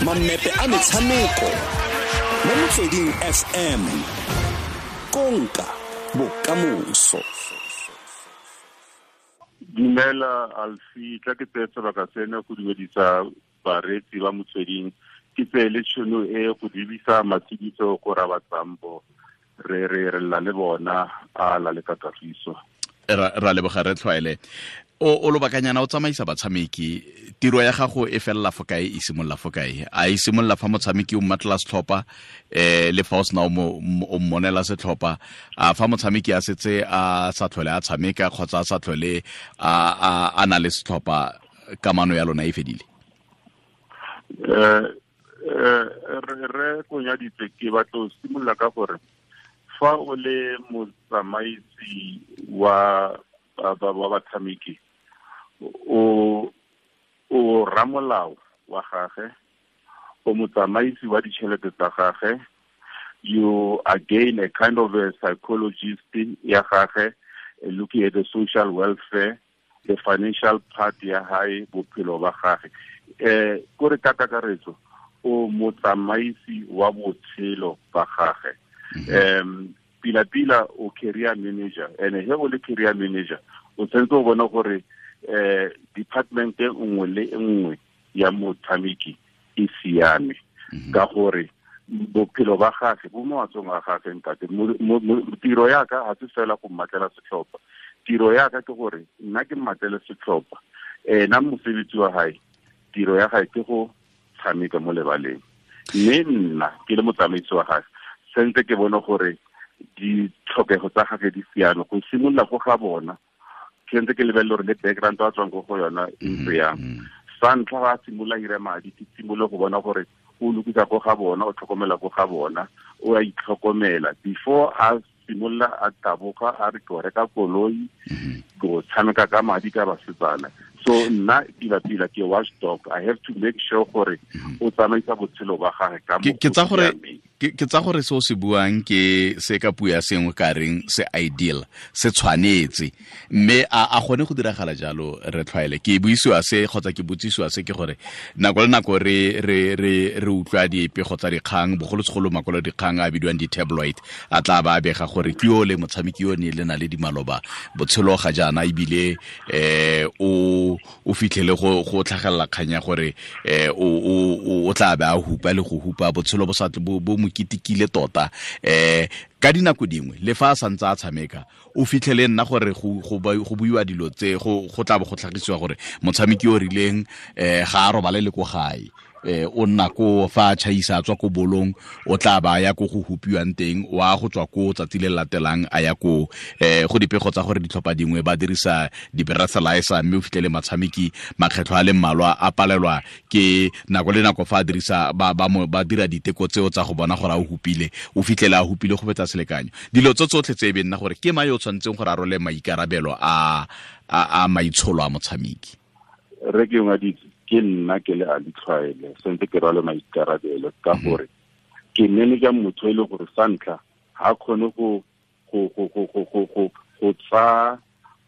Mammepe a metshameko mo Motsweding FM. Konka bokamoso. Dumela Alfi, tla ke tseye sebaka sena go dumedisa bareetsi ba Motsweding. Ke tseye le tšhono e go lebisa matshidiso go Rabatsambo, re re re lla le bona a la le ka kagiso. Ra leboga re tlhwaele. O lobakanyana o tsamaisa batshameki, tiro ya gago e felela fo kae, e simolola fo kae? A e simolola fa motshameki o mmatlela setlhopha, le fa o sena o mmonela setlhopha, a fa motshameki a setse a sa tlhole a tshameka kgotsa a sa tlhole a na le setlhopha, kamano ya lona e fedile? Re konyaditse, ke batla go simolola ka gore fa o le motsamaisi wa batshameki, o ramolao wa gage, o motsamaisi wa ditšhelete tsa gage, you again a kind of a psychologist ya gage, looking at the social welfare, the financial part ya hae, bophelo ba gage. Kore ka kakaretso o motsamaisi wa botshelo ba gage. Pila pila o career manager, and he o le career manager o tshwanetse o bone gore department e nngwe le nngwe ya motshameki e siame, ka gore bophelo ba gage bo mo matsogong a gage ntate. Tiro ya ka ga se fela go mmatlela setlhopha, tiro ya ka ke gore nna ke mmatlele setlhopha, ena mosebetsi wa hae, tiro ya gae ke go tshameka mo lebaleng, mme nna ke le motsamaisi wa gage sentse ke bone gore ditlhokego tsa gage di siame go simolola go ga bona. Sentse ke lebelele gore le background a tswang ko go yona e ntse yang. Sa ntlha ga a simolola ira madi, ke simolole go bona gore o lokisa ko ga bona, o tlhokomela ko ga bona, o a itlhokomela before a simolola a taboga a re ke o reka koloi, go tshameka ka madi ka basetsana. So nna pila pila ke watchdog, I have to make sure gore o tsamaisa botshelo ba gage ka Ke tsa gore se o se buang ke se ka puo ya sengwe ka reng se ideal, se tshwanetse, mme a gone go diragala jalo re tlhwaele. Ke buisiwa se kgotsa ke botsisiwa se ke gore nako le nako re re re re utlwa dipego tsa dikgang, bogolosegolo makwalo dikgang a bidiwang di-tabloid, a tla ba bega gore ke yo le motshameki yo ne le na le dimaloba botshelo ga jaana, ebile o fitlhele go tlhagelela kgang ya gore o tla be a hupa le go hupa, botshelo bo sa bo mo kitikile tota. Ka dinako dingwe le fa a santse a tshameka, o fitlhele nna gore go buiwa dilo tse, go tla bo go tlhagisiwa gore motshameki o rileng ga a robale le ko gae, o nna ko fa a tšhaisa a tswa ko bolong, o tla ba ya ko go hupiwang teng, wa go tswa ko tsatsi le latelang a ya ko go dipego tsa gore ditlhopha dingwe ba dirisa di-breathalyzer, mme o fitlhele matshameki makgetlho a le mmalwa a palelwa ke nako le nako fa a dirisa ba dira diteko tseo tsa go bona gore a o hupile, o fitlhele a hupile go fetsa selekanyo. Dilo tso tsotlhe tse e be nna gore ke mang yo o tshwanetseng gore a role maikarabelo a maitsholo a motshameki? Re ke ngaditse, ke nna ke le a ditlhwaele, sentse ke rwale maikarabelo ka gore ke manager motho e le gore sa ntlha ga kgone go tsa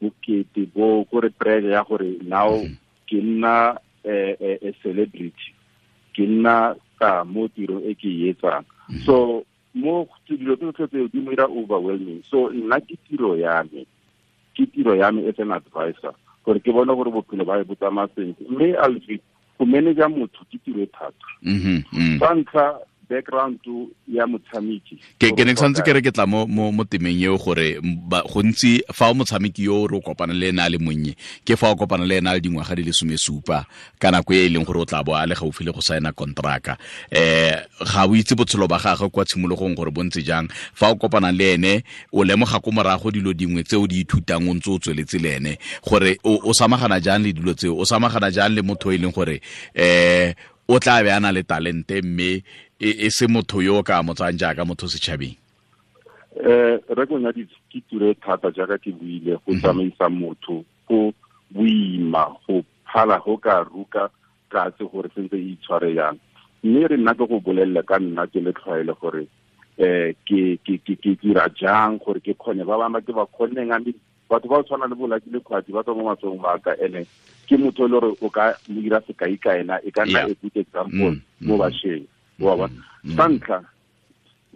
bokete bo kore pressure ya gore now ke nna a celebrity, ke nna ka mo tiro e ke e etsang. So mo dilo tse tseo di mo dira overwhelming. So nna ke tiro ya me, ke tiro ya me as an advisor gore ke bone gore bophelo ba bo tsamaya sentle. Mme Alfi, go manager motho ke tiro e thata. Sa ntlha background ya motshameki. Ke ne ke santse ke re ke tla mo temeng eo gore gontsi fa o motshameki yo re o kopana le ena a le monnye, ke fa o kopana le ena a le dingwaga di le 17 ka nako e e leng gore o tla bo a le gaufi le go saena kontraka. Ga o itse botshelo ba gagwe kwa tshimologong gore bo ntse jang. Fa o kopana le ene o lemoga ko morago dilo dingwe tse o di ithutang o ntse o tsweletse le ene, gore o samagana jang le dilo tseo, o samagana jang le motho e leng gore o tla be a na le talente mme e se motho yo o ka mo tsayang jaaka motho setšhabeng. Re konyaditse ke tiro e thata jaaka ke buile, go tsamaisa motho go boima, go phala go ka ruka katse gore sentse e itshware yang. Mme re nna ke go bolelle ka nna ke le tlhwaele gore ke dira jang gore ke kgone ba bangwe ke ba kgonneng, a batho ba tshwana le bo Lucky Lekgwathi ba tswa mo matsogong a ka, ene Ke motho le gore o ka mo dira sekai ka ena, e ka nna a good example mo bašweng, wa bona. Sa ntlha,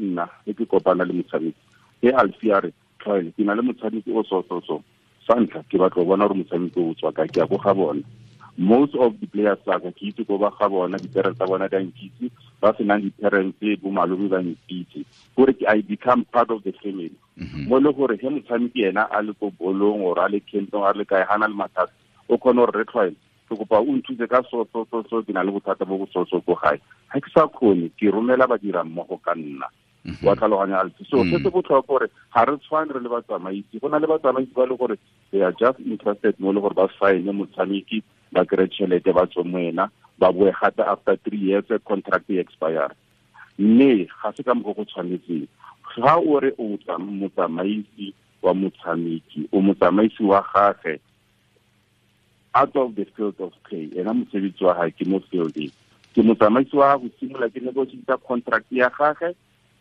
nna e ke kopana le motshameki e Alfi a re, Tlhwaele, ke na le motshameki o so so so. Sa ntlha, ke batla go bona gore motshameki o tswa kae, ke ya ko ga bona. Most of the players tsa ka ke itse ko ba ga bona, di-parents tsa bona di a nkitse, ba senang di-parents bo malome ba nkitse, gore ke I become part of the family. Mo le gore he motshameki ena a le ko bolong or a le campong, a le kae, ga na le mathata, o kgone gore re Tlhwaele, ke kopa o nthuse ka so so so so, ke na le bothata bo bo so so ko gae, ga ke sa kgone, ke romela badira mmogo ka nna. Wa tlhaloganya, Alfi? So se se botlhokwa gore ga re tshwane re le batsamaisi. Go na le batsamaisi ba le gore they are just interested mo le gore ba sign motshameki, ba kry tšhelete, ba tswe mo ena, ba boe gape after 3 years contract e expire. Mme ga se ka mokgwa go tshwanetseng. Ga o re o motsamaisi wa motshameki, o motsamaisi wa gage out of the field of play, ena mosebetsi wa gage ke mo fielding. Ke motsamaisi wa go simolola ke negotiate contract ya gage,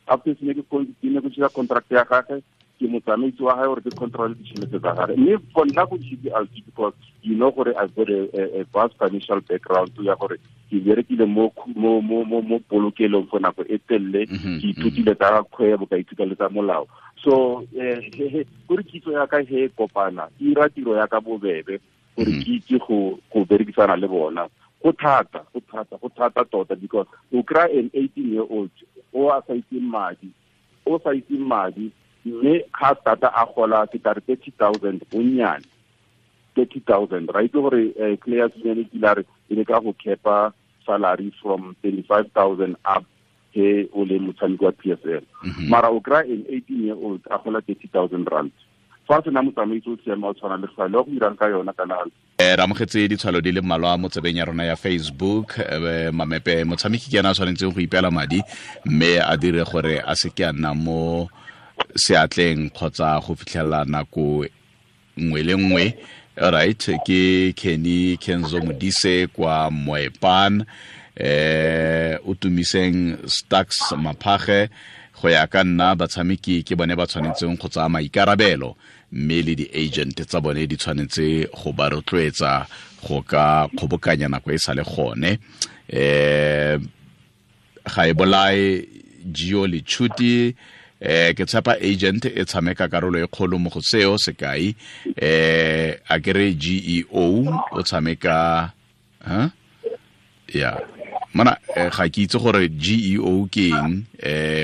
after se ne ke negotiate contract ya gage, ke motsamaisi wa gage gore ke control ditšhelete tsa gage. Mme for nna go easy, Alfi, because you know gore I've got a vast financial background ya gore ke berekile mo mo mo mo mo polokelong for nako e telele, ke ithutile tsa kgwebo, ka ithuta le tsa molao. So gore kitso ya ka he kopana, ke ira tiro ya ka bobebe gore ke itse go berekisana le bona. Go thata, go thata, go thata tota, because o kry an 18 year old o a sa itseng madi, o sa itseng madi, mme ga tata a gola ke tla re 30,000 bonnyane, 30,000, right? Gore players union e kile a re e le ka go kepa salary from 25,000 up he o le motshameki wa PSL. Mara o kry an 18 year old a gola 30,000 rand. Fa sena motsamaisi o siame o tshwana le Tlhwaele, wa go dirang ka yona kana? Re amogetse ditshwalo di le mmalwa mo tsebeng ya rona ya Facebook. Mamepe, motshameki ke ena a tshwanetseng go ipeela madi mme a dire gore a se ke a nna mo seatleng kgotsa go fitlhelela nako nngwe le nngwe. Alright, ke Kenny Kenzo Modise kwa Moepan. O tumiseng Stacks Maphage, go ya ka nna batshameki ke bone ba tshwanetseng go tsaya maikarabelo, mme le di-agent tsa bone di tshwanetse go ba rotloetsa go ka kgobokanya nako e sa le gone. Ga e bolae Gio Lechuti. Ke tshepa agent e tshameka karolo e kgolo mo go seo. Sekai, a kere GEO o tshameka, huh? Yeah, mana ga ke itse gore GEO ke eng,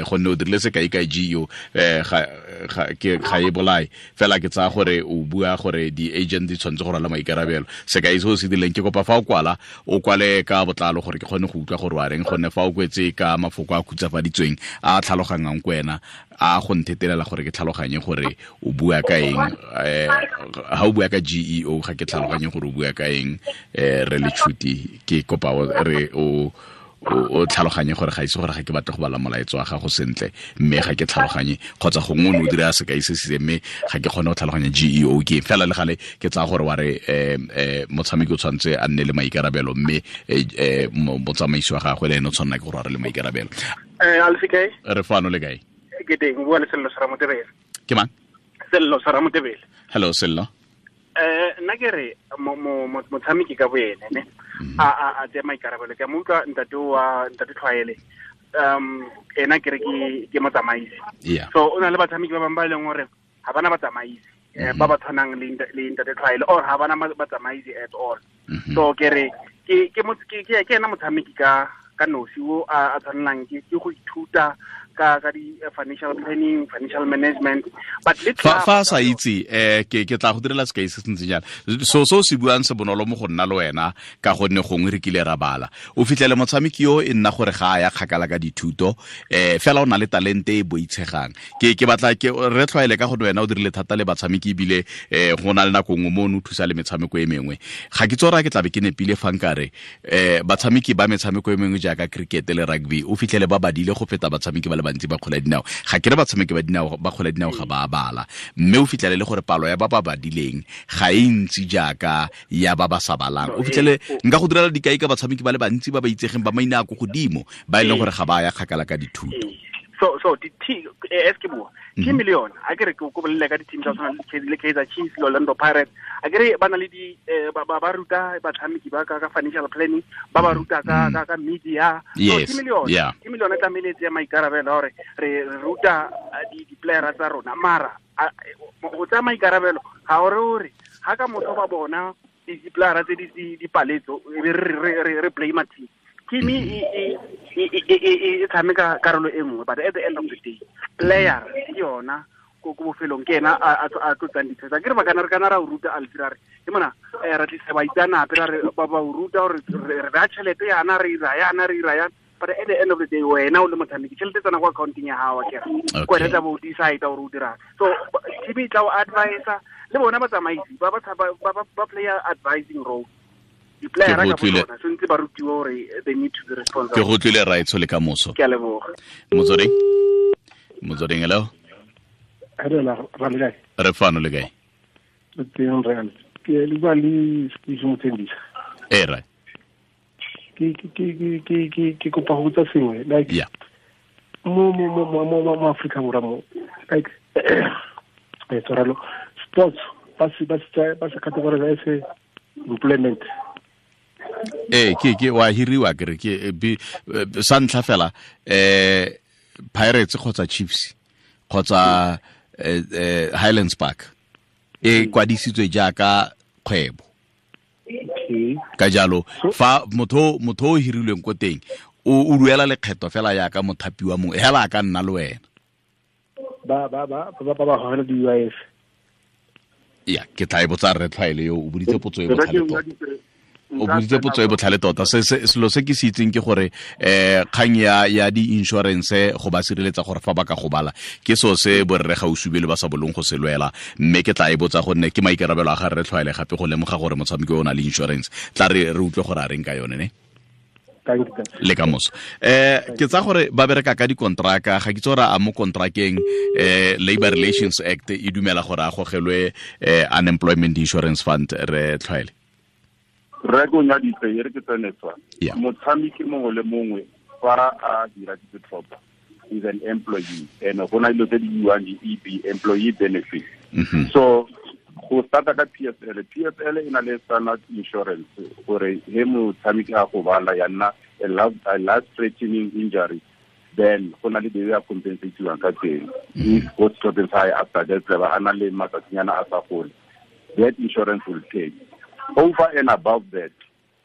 gonne o dirile sekai ka GEO, ga e bolae fela, ke tsaya gore o bua gore di-agent di tshwanetse go rwala maikarabelo. Sekai se o se dirileng, ke kopa fa o kwala, o kwale ka botlalo gore ke kgone go utlwa gore wa reng, gonne fa o kwetse ka mafoko a khutsafaditsweng a tlhalogangang ko wena, a go nthetelela gore ke tlhaloganye gore o bua ka eng. Ha o bua ka GEO ga ke tlhaloganye gore o bua ka eng. Re Lechuti, ke kopa re o tlhaloganye gore ga ise gore ga ke batle go bala molaetso wa gago sentle, mme ga ke tlhaloganye, kgotsa gongwe o ne o dira sekai se se, mme ga ke kgone go tlhaloganya GEO ke eng. Fela le gale ke tsaya gore wa re motshameki o tshwanetse a nne le maikarabelo, mme motsamaisi wa gagwe le ene o tshwanela ke gore a re le maikarabelo. Alfi, kae? Re fano, le kae? Ke teng, o bua le Sello Saramotebele. Ke mang? Sello Saramotebele. Hello Sello. Nna ke re motshameki ka boene ne a tsaya maikarabelo. Ke a mo utlwa ntate wa ntate Tlhwaele, ena ke re ke motsamaisi. So o na le batshameki ba bangwe ba e leng gore ga bana batsamaisi, ba ba tshwanang le ntate Tlhwaele, or ga bana batsamaisi at all. So ke re ke ena motshameki ka nosi o a tshwanelang ke go ithuta ka di financial planning, financial management. But fa sa itse, ke tla go direla sekai se se ntseng jana. So se buang se bonolo mo go nna le wena, ka gonne gongwe re kile ra bala. O fitlhele motshameki yo e nna gore ga a ya kgakala ka dithuto, fela o na le talente e boitshegang. Ke batla ke re Tlhwaele ka gonne wena o dirile thata le batshameki, ebile go na le nako nngwe mo o ne o thusa le metshameko e mengwe. Ga ke tsora ke tlabe ke nepile fa nkare batshameki ba metshameko e mengwe jaaka cricket le rugby o fitlhele ba badile go feta batshameki ba le bantsi ba kgwele ya dinao. Ga ke re batshameki ba dinao ba kgwele ya dinao ga ba bala, mme o fitlhele le gore palo ya ba ba badileng ga e ntsi jaaka ya ba ba sa balang. O fitlhele nka go direla dikai ka batshameki ba le bantsi ba ba itsegeng ba maina a ko godimo ba e leng gore ga ba ya kgakala ka dithuto. So di as ke bua team le yona a ke re ke go bolele ka di team tsa tshwana le Kaizer Chiefs le Orlando Pirates, a ke re ba na le di ba ruta batshameki ba ka financial planning, ba ruta ka media. So team le yona, team le yona tlamehile tse maikarabelo gore re ruta di player tsa rona, mara go tsaya maikarabelo ga ore ore ha ka motho ba bona di player tse di paletso re blame team. Team e tshameka karolo e nngwe, but at the end of the day player ke yona ko bofelong ke ena a tlotsang ditshwetso. Ke re ba kana re kana ra o ruta Alfie, ra re ke mona ra tlisa baitsanape ra re ba o ruta gore re baya tšhelete yana re ira yana re ira yana, but at the end of the day wena o le motshameki tšhelete tsena kwa accounting ya gago akere ko wena tla bo o decide gore o dirang. So team e tla o advisa le bona batsamaisi ba ba play advising role. Ke go tlile right le ka moso. Ke a leboga. Motsoding hello. Hello, re fano le kae? Teng re ke le bua le Steve Mothendisa. Eh right. Ke kopa go botsa sengwe like yeah. Mo Afrika Borwa mo like tshwarelo sports ba se categorize as employment. Ke wa hiriwa ke re ke sa ntlha fela Pirates kgotsa Chiefs kgotsa Highlands Park e kwadisitswe jaaka kgwebo. Ka jalo fa motho o hirilweng ko teng o duela lekgetho fela jaaka mothapi wa mongwe hela a ka nna le wena. Ba gogela di UIF. Ya ke tla e botsa re tlhwaele yo o boditse potso e botlhale tota. O boditse potso e botlhale tota. Selo se ke se itseng ke gore kgang ya di-insurance go ba sireletsa gore fa ba ka gobala ke seo se borre gausubele ba sa bolong go se lwela, mme ke tla e botsa gonne ke maikarabelo a ga re tlhwaele gape go lemoga gore motshameki o na le insurance. Tla re utlwe gore a reng ka yone ne le ka moso. Ke tsa gore ba bereka ka dikontraka, ga ke tse gore a mo kontrakeng Labor Relations Act e dumela gore a gogelwe Unemployment Insurance Fund. Re tlhwaele re go nyaditse e re ke tsene tswa motshameki mongwe le mongwe fa a dira ditlhopha is an employee and go na dilo tse di buiwang di-EB, employee benefit. So go starta ka PSL e na le standard insurance gore he motshameki a gobala ya nna a life threatening injury, then go na le the way a compensatiwang ka teng. If go setlhopheng sa hae after that a na le matsatsinyana a sa gole, that insurance will pay. Over and above that,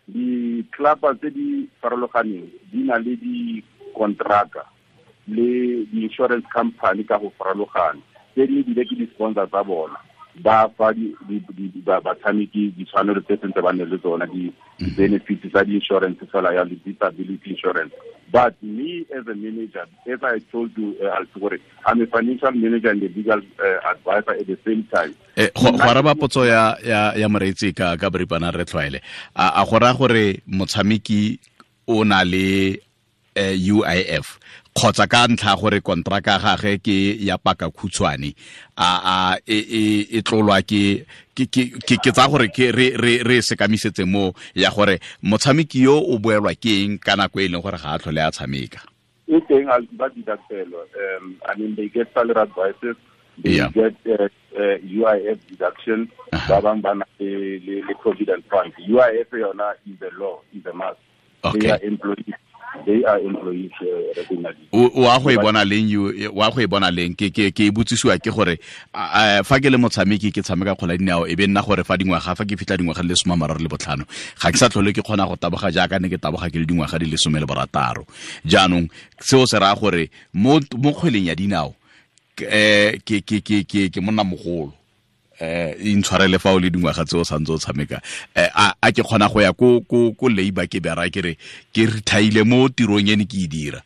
the club tse di farologaneng di na le di-contractor le di-insurance company ka go farologana tse dingwe ebile ke di-sponsor tsa bona ba fa batshameki ditshwanelo tse sentse ba nne le tsona di-benefits tsa di-insurance fela ya le disability insurance. But me as a manager, as I told you, gore I'm a financial manager and a legal advisor at the same time. Go araba potso ya moreetsi ka boripana re tlhwaele a go raya gore motshameki o na le UIF kgotsa ka ntlha gore kontraka gagwe ke ya paka khutshwane a e tlolwa ke tsa gore ke re sekamisetse mo ya gore motshameki yo o boelwa ke eng ka nako e leng gore ga a tlhole a tshameka. E teng ba deductelwa. I mean they get salary advices, they get UIF deduction, ba bang ba na le provident fund. UIF yona is a law, is a must. Okay. They are employees. They are employees. O a go e bona leng wa go e bona leng ke e botsisiwa ke gore fa ke le motshameki ke tshameka kgwele ya dinao e be nna gore fa dingwaga fa ke fitlha dingwaga di le 35 ga ke sa tlhole ke kgona go taboga jaaka ne ke taboga ke le dingwaga di le 16. Jaanong seo se raya gore mo kgweleng ya dinao ke monna mogolo intshwarele fa o le dingwaga tse o santse o tshameka a ke kgona go ya ko labor ke bera ke re ke retire mo tirong e ne ke e dira.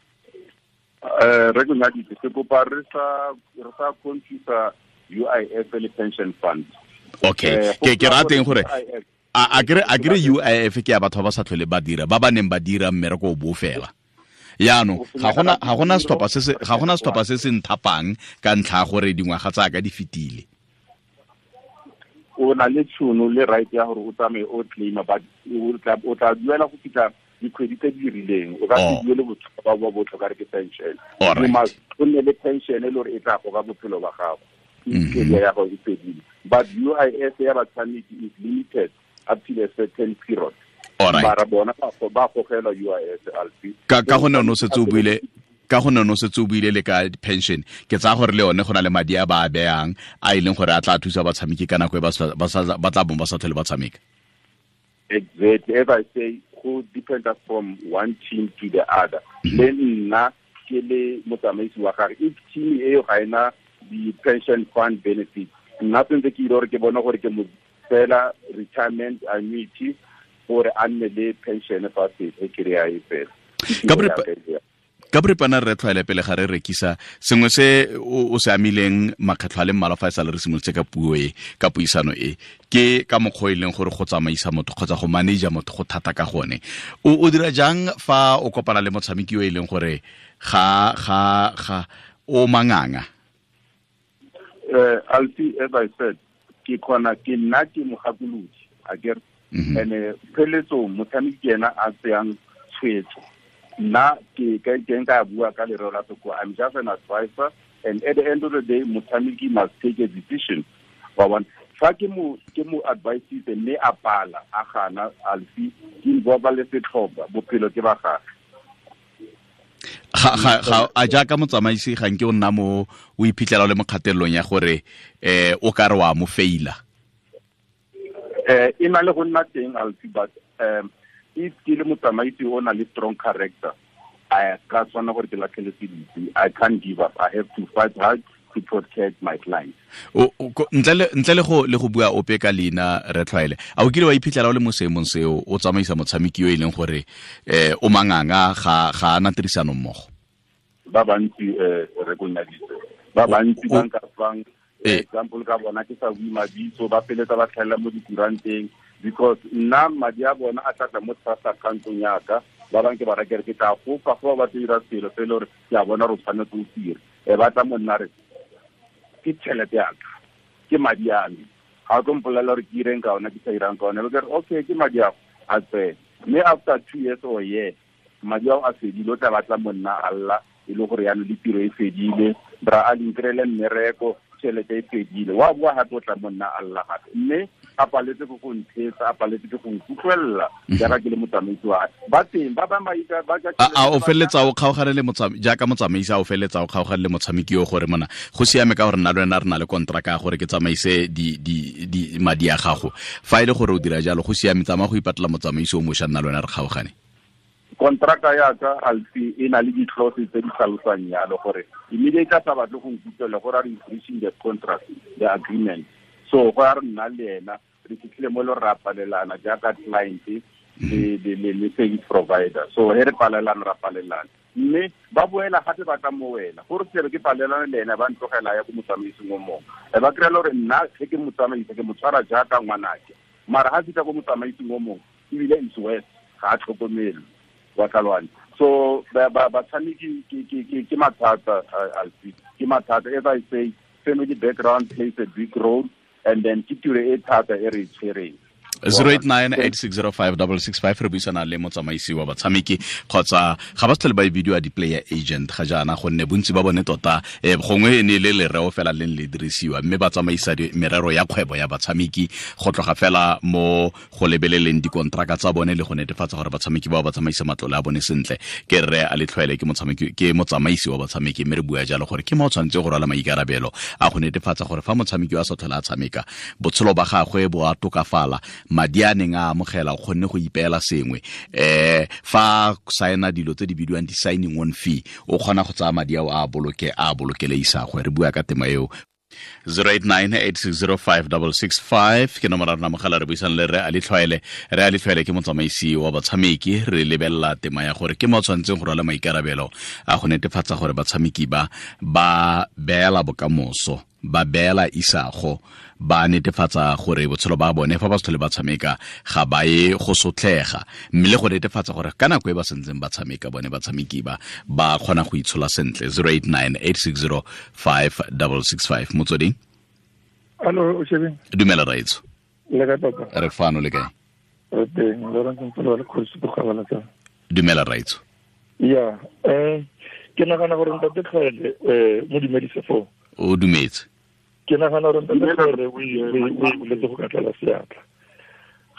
Re go nyaditse ke kopa re sa confuse UIF le pension fund. Okay, ke rateng gore a kere UIF ke ya batho ba sa tlhole ba dira ba ba neng ba dira mmereko o bo fela. Yaanong ga gona setlhopha se se nthapang ka ntlha gore dingwaga tsa ka di fetile. O na le tšhono le right ya gore o tsamaye o claima, but o tla duela go fitlha Dikgwedi tse di rileng o ka se duele botlhokwa ba botlhokwa re ke pension o nne le pension e le gore e tla goga bophelo ba gago career ya gago e fedile. But UIF ya batshameki is limited up to a certain period. Mara bona ba gogelwa UIF alfi ka gone o setse o buile ka gone no setse o buile le ka pension ke tsaya gore le yone go na le madi a ba a beyang a e leng gore a tla thusa batshameki ka nako e ba tla bong ba sa tlhole ba tshameka. Exactly. As I say, go depend from one team to the other. Le nna ke le motsamaisi wa gagwe, if team eo ga ena di-pension fund benefit, nna sentse ke ile gore ke bone gore ke mo fela retirement annuity gore a nne le pension fa se kry-a e fela. Ka boripana re tlwaele pele ga re rekisa sengwe se o se amileng makgetlho a le mmalwa fa e sale re simolotse ka puo e ka puisano e ke ka mokgwa e leng gore go tsamaisa motho kgotsa go manager motho go thata ka gone. O dira jang fa o kopana le motshameki yo e leng gore ga ga ga o manganga? Alfi, as I said, ke kgona ke nna ke mogakolodi akere and pheletsong motshameki ena a tseyang tshwetso. Nna ke nka bua ka lereo la sekgowa, I'm just an advisor, and at the end of the day motshameki must take a decision. Wa bona, fa ke mo advisitse mme a pala a gana alfi ke involve le setlhopha bophelo ke ba gagwe. Ga a jaaka motsamaisi ga nke o nna mo o iphitlhela o le mo kgatelelong ya gore o ka re wa mo faila? E na le go nna teng alfi, but if ke le motsamaisi o na le strong character, I ka tshwana gore ke latlhele seditse. I can't give up. I have to fight hard to protect my clients. Ntle le go bua ope ka leina re tlwaele, a o kile wa iphitlhela o le mo seemong seo o tsamaisa motshameki yo e leng gore o manganga ga ana tirisano mmogo? Ba bantsi re konyaditse, ba bantsi ba nka fang example ka bona ke sa bue mabitso, ba feletsa ba tlhaela mo dikuranteng because nna madi a bona a tlatla mo trust account-ong yaka. Ba bangwe ke ba rakere ke tla go fa ba batla dira selo se e le gore ke a bona gore o tshwanetse o dire, e batla mo nna re ke tšhelete yaka, ke madi a me, ga o tlo mpolelela gore ke ireng ka ona ke sa irang ka ona. Be ke re okay, ke madi ao a tsene, mme after 2 years or year madi ao a fedile, o tla batla mo nna a lla e le gore yaanong le tiro e fedile, bra a le mmereko, tšhelete e fedile, wa boa gape o tla mo nna a lla gape, mme a paletse ke go ntheetsa, a paletse ke go nkutlwelela jaaka ke le motsamaisi wa ba teng ba bangwe ba a o feleletsa o kgaogane le jaaka motsamaisi, a o feleletsa o kgaogane le motshameki yo gore mona go siame ka gore nna le wena re na le kontraka ya gore ke tsamaise di madi a gago, fa e le gore o dira jalo go siame, tsamaya go ipatlela motsamaisi o mošwa, nna le wena re kgaogane? Kontraka ya ka alfi e na le di-clauses tse di tlhalosang yalo gore immediately a sa batle go nkutlwela gore a re breaching the contract, the agreement. So go ya re nna le ena re fitlhile mo le re palelana jaaka client le service provider. So he re palelana ra palelana, mme ba boela gape ba tla mo wena gore ke re ke palelana le ena, ba ntlogela ya ko motsamaising o mongwe, e ba kry-a le gore nna ge ke motsamaisa ke mo tshwara jaaka ngwanake, mara ga fitlha ko motsamaising o mongwe ebile is worse, ga a tlhokomelwe wa tlhaloganya. So batshameki ke mathata alfi, ke mathata. As I say, family background plays a big role, and then ke tiro e thata e re e tshwereng. 0898605665 re buisana le motsamaisi wa batshameki kgotsa ga ba tlhole ba e bidiwa di-player agent ga jaana, gonne bontsi ba bone tota gongwe e ne le lereo fela leng le dirisiwa, mme ba tsamaisa merero ya kgwebo ya batshameki go tloga fela mo go lebeleleng dikontraka tsa bone le go netefatsa gore batshameki bao ba tsamaisa matlole a bone sentle. Ke rre a Letlhoele, ke motshameki, ke motsamaisi wa batshameki, mme re bua jalo gore ke mo o tshwanetse go rwala maikarabelo a go netefatsa gore fa motshameki wa sa tlhole a tshameka botshelo ba gagwe bo a tokafala, madi a neng a amogela o kgonne go ipeela sengwe, fa saena dilo tse di bidiwang di-signing on fee o kgona go tsaya madi ao a boloke a bolokele isagwe. Re bua ka tema eo. 0898605665 ke nomoro ya rona mogala, re buisang le Rre Ali Tlhwaele. Rre Ali Tlhwaele ke motsamaisi wa batshameki, re lebelela tema ya gore ke mo tshwanetseng go rwala maikarabelo a go netefatsa gore batshameki ba ba beela bokamoso, ba beela isago, ba netefatsa gore botshelo ba bone fa ba se tlhole ba tshameka ga ba ye go sotlega, mme le go netefatsa gore ka nako e ba sentseng ba tshameka bone batshameki ba ba kgona go itshola sentle. 0898605665. Motsweding. Allo, o shebeng. Dumela raitso. Le kae papa? Re fano, le kae? Re teng, Lawrence Mpolo le Kgosi Bogabala tsa. Dumela raitso. Ya, ke nagana gore ntate Tlhaele mo dumedise foo. O dumetse. Ke nagana gore ntate Tlhaele o iletse go ka tlala seatla.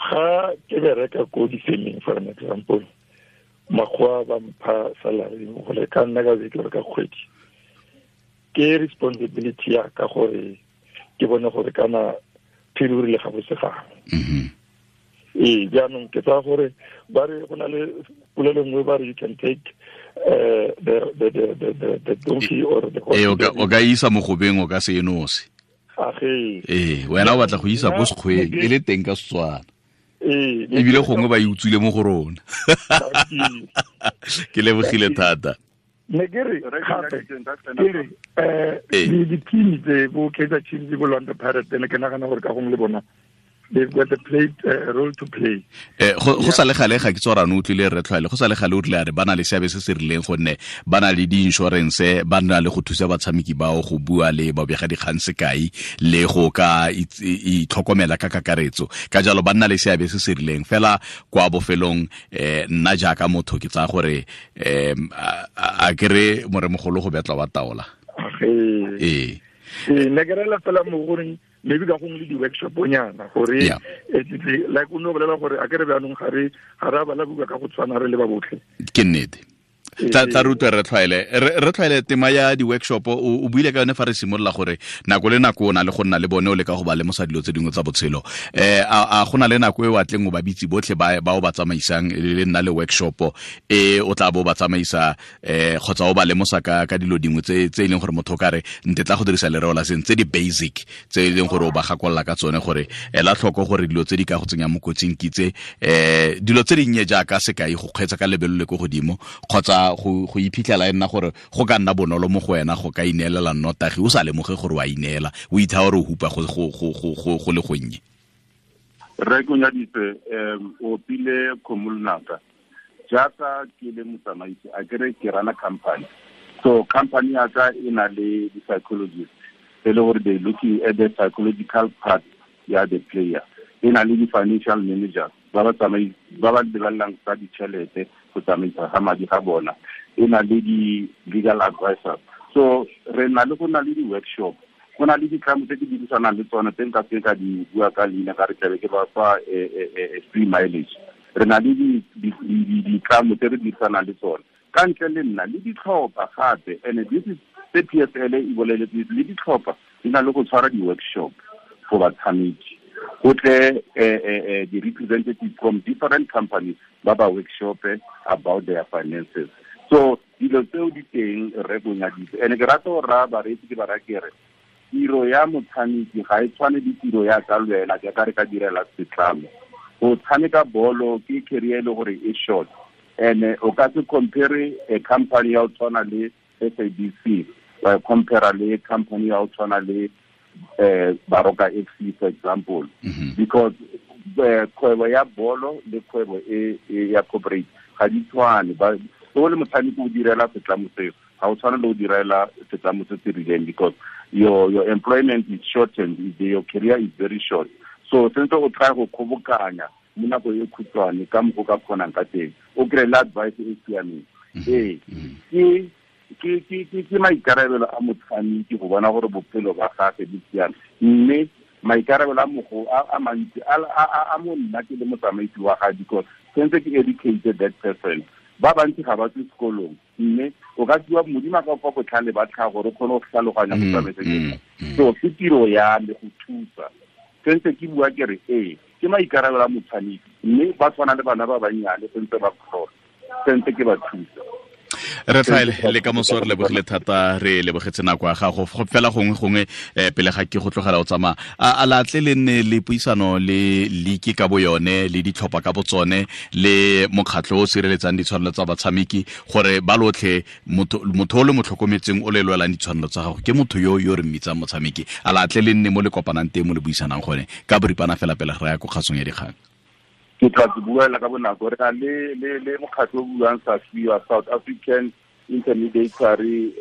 Ga ke bereka ko di-firming, for an example, makgowa ba mpha salary gore ka nna ka beke ka kgwedi. Ke responsibility ya ka gore ke bone gore kana phiri o rile ga bose gangwe. Ee, jaanong ke tsaya gore ba re go na le polelo nngwe ba re you can take the donkey or the horse. Ee, o ka isa mogobeng o ka se enose. Ee, wena o batla go isa ko sekgweng e le teng ka Setswana. Ee, ebile gongwe ba e utswile mo go rona. Ke lebogile thata. Ne ke re gape ke re di-team tse bo Kaizer Chiefs bo Orlando Pirates ne ke nagana gore ka gongwe le bona they've got a play, role to play. Go sa le gale ga ke tsora no utlwile re tlhwaele go sa le gale o tle a re bana le seabe se se rileng gonne ba na le di-insurance, ba na le go thusa batshameki bao go bua le babega dikgang sekai le go ka itlhokomela ka kakaretso. Ka jalo ba nna le seabe se se rileng fela kwa bofelong. Nna jaaka motho ke tsaya gore a kere moremogolo go betla wa taola. Ee, ne ke rela fela mo goreng maybe ka gongwe le di-workshop nyana gore like o ne o bolela gore a ke re bjaanong ga re a bala buka ka go tshwana re le ba botlhe. Ke nnete. Tla rutwe re tlhwaele. Re tlhwaele tema ya di-workshop o buile ka yone fa re simolola gore nako le nako o na le go nna le bone o leka go ba lemosa dilo tse dingwe tsa botshelo. A go na le nako e o atleng o ba bitse botlhe ba o ba tsamaisang le nna le workshop e o tla bo ba tsamaisa kgotsa o ba lemosa ka dilo dingwe tse e leng gore motho o ka re nte tla go dirisa lereo la seng tse di basic tse e leng gore o ba gakolola ka tsone gore ela tlhoko gore dilo tse di ka go tsenya mo kotsing ke tse, dilo tse dinnye jaaka sekai go kgweetsa ka lebelo le ko godimo kgotsa go iphitlhela e nna gore go ka nna bonolo mo go wena go ka ineelela nnotagi o sa lemoge gore wa ineela, o itha gore o hupa go le gonnye. Rre Konyaditse, o opile kgomo lonaka. Jaaka ke le motsamaisi, a kere ke rana company. So company ya ka e na le di-psychologist e le gore they looking at the psychological part ya the player. E na le di-financial managers ba ba lebelelang tsa ditšhelete go tsamaisa ga madi ga bona. E na le di-legal advisors. So re na le go na le di-workshop, go na le ditlamo tse ke dirisanang le tsone tse nka se ka di bua ka leina ka re tlabe ke ba fa free mileage. Re na le ditlamo tse re dirisanang le tsone ka ntle le nna le ditlhopha gape. And this is the PSL e boleletse le ditlhopha di na le go tshwara di-workshop for batshameki. Go tle di-representatives from different companies ba ba workshop about their finances. So dilo tseo di teng re bonyaditse. And ke rata go raya bareetsi ke ba raya ke re tiro ya motshameki ga e tshwane le tiro ya ka le wena jaaka re ka direla setlamo. Go tshameka bolo ke career e le gore e short, and o ka se compare a company ya go tshwana le SABC wa compare le company ya go tshwana le Baroka FC, for example. Because kgwebo ya bolo le kgwebo e ya corporate ga di tshwane. O le motshameki o direla setlamo seo, ga o tshwane le o direla setlamo se se rileng because your employment is shortened, your career is very short. So sentse o try go kgobokanya mo nako e khutshwane ka mokgwa o ka kgonang ka teng, o kry-e le advice e siameng. Ee, ke maikarabelo a motshameki go bona gore bophelo ba gagwe bo siame, mme maikarabelo a mogo a mantsi a mo nna ke le motsamaisi wa gagwe because sentse ke educated that person. Ba bantsi ga ba tswe sekolong, mme o ka fiwa Modimo a ka fa botlhale ba tlhago gore o kgone go tlhaloganya go tsamaisa. So ke tiro ya me go thusa. Sentse ke bua ke re ee, ke maikarabelo a motshameki, mme ba tshwana le bana ba bannyane sentse ba kgona, sentse ke ba thusa. Re tlhaele le ka moso re lebogile thata, re lebogetse nako ya gago. Fela gongwe pele ga ke go tlogela o tsamaya, a latle le nne le puisano le league ka bo yone le ditlhopha ka botsone le mokgatlho o sireletsang ditshwanelo tsa batshameki gore ba lotlhe motho o le mo tlhokometseng o le lwelang ditshwanelo tsa gago ke motho yo yo re mmitsang motshameki. A latle le nne mo le kopanang teng mo le buisanang gone ka boripana fela pele re ya ko kgasong ya dikgang. Ke tla ke buela ka bonako. Re na le mokgatlho o buang SAFIWA, South African Intermediary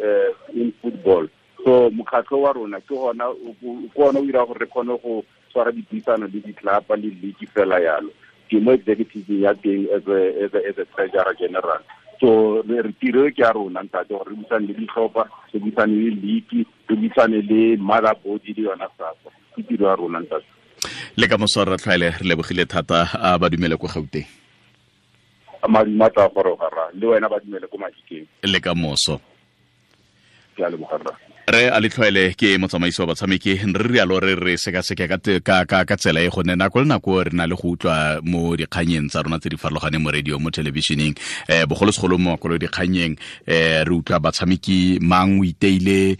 in Football. So mokgatlho wa rona ke gona o dira gore re kgone go tshwara dipuisano le ditlapa le league fela yalo. Ke mo executive ya teng as a treasurer general. So re tiro ke ya rona ntate gore re buisane le ditlhopha, re buisane le league, re buisane le mother body le yona SAFA. Ke tiro ya rona ntate. Le ka moso re tlhaele re lebogile thata a ba dumele ko Gauteng. Madume a tla goroga rra, le wena ba dumele ko Mahikeng. Le ka moso. Ke a leboga rra. Re a letlhoele ke motsamaisi wa batshameki re rialo re re sekaseke ka tsela e gonne nako le nako re na le go utlwa mo dikganyeng tsa rona tse di farologaneng mo radio mo televisioneng bogolosegolo mo makolo dikganyeng re utlwa batshameki mang o iteile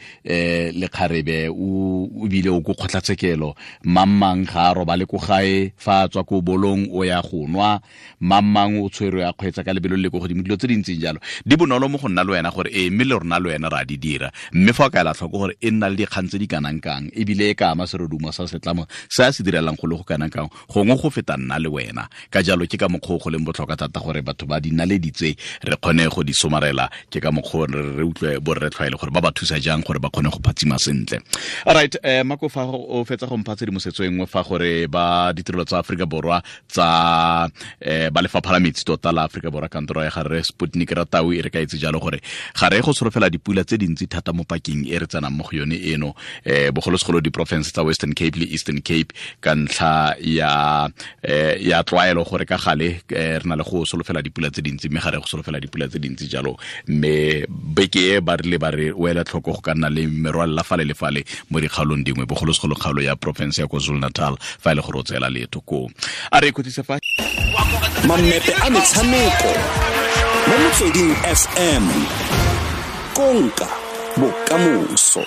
lekgarebe o bile o ko kgotlatshekelo mang ga a robale ko gae fa a tswa ko bolong o ya go nwa mang o tshwerwe a kgweetsa ka lebelo le ko godimo dilo tse di ntseng jalo di bonolo mo go nna le wena gore ee mme le rona le wena ra di dira mme fa o ka ela tlhoko gore e nna le dikgang tse di kanang kang ebile e ka ama serodumo sa setlamo se a se direlang go le go kanang kang gongwe go feta nna le wena ka jalo ke ka mokgwa o go leng botlhokwa thata gore batho ba dinaledi tse re kgone go di somarela ke ka mokgwa re utlwe borre tlhwaele gore ba ba thusa jang gore ba kgone go phatsima sentle. Alright, Mako fa o fetsa go mpha tshedimosetso e nngwe fa gore ba ditirelo tsa Aforika Borwa tsa ba lefapha la metsi tota la Aforika Borwa kantoro ya gare Sputnik Ratau e re ka itse jalo gore ga re go solofela dipula tse dintsi thata mo pakeng e re tsenang mo go yone eno bogolosegolo diporofense tsa Western Cape le Eastern Cape ka ntlha ya tlwaelo gore ka gale re na le go solofela dipula tse dintsi mme ga re go solofela dipula tse dintsi jalo mme beke e ba rile ba re o ela tlhoko go ka nna le merwalela fale le fale mo dikgaolong dingwe bogolosegolo kgaolo ya porofense ya KwaZulu-Natal fa e le gore o tseela leeto koo. A re ikhutlise fa Mammepe a metshameko mo Motsweding FM konka bokamoso.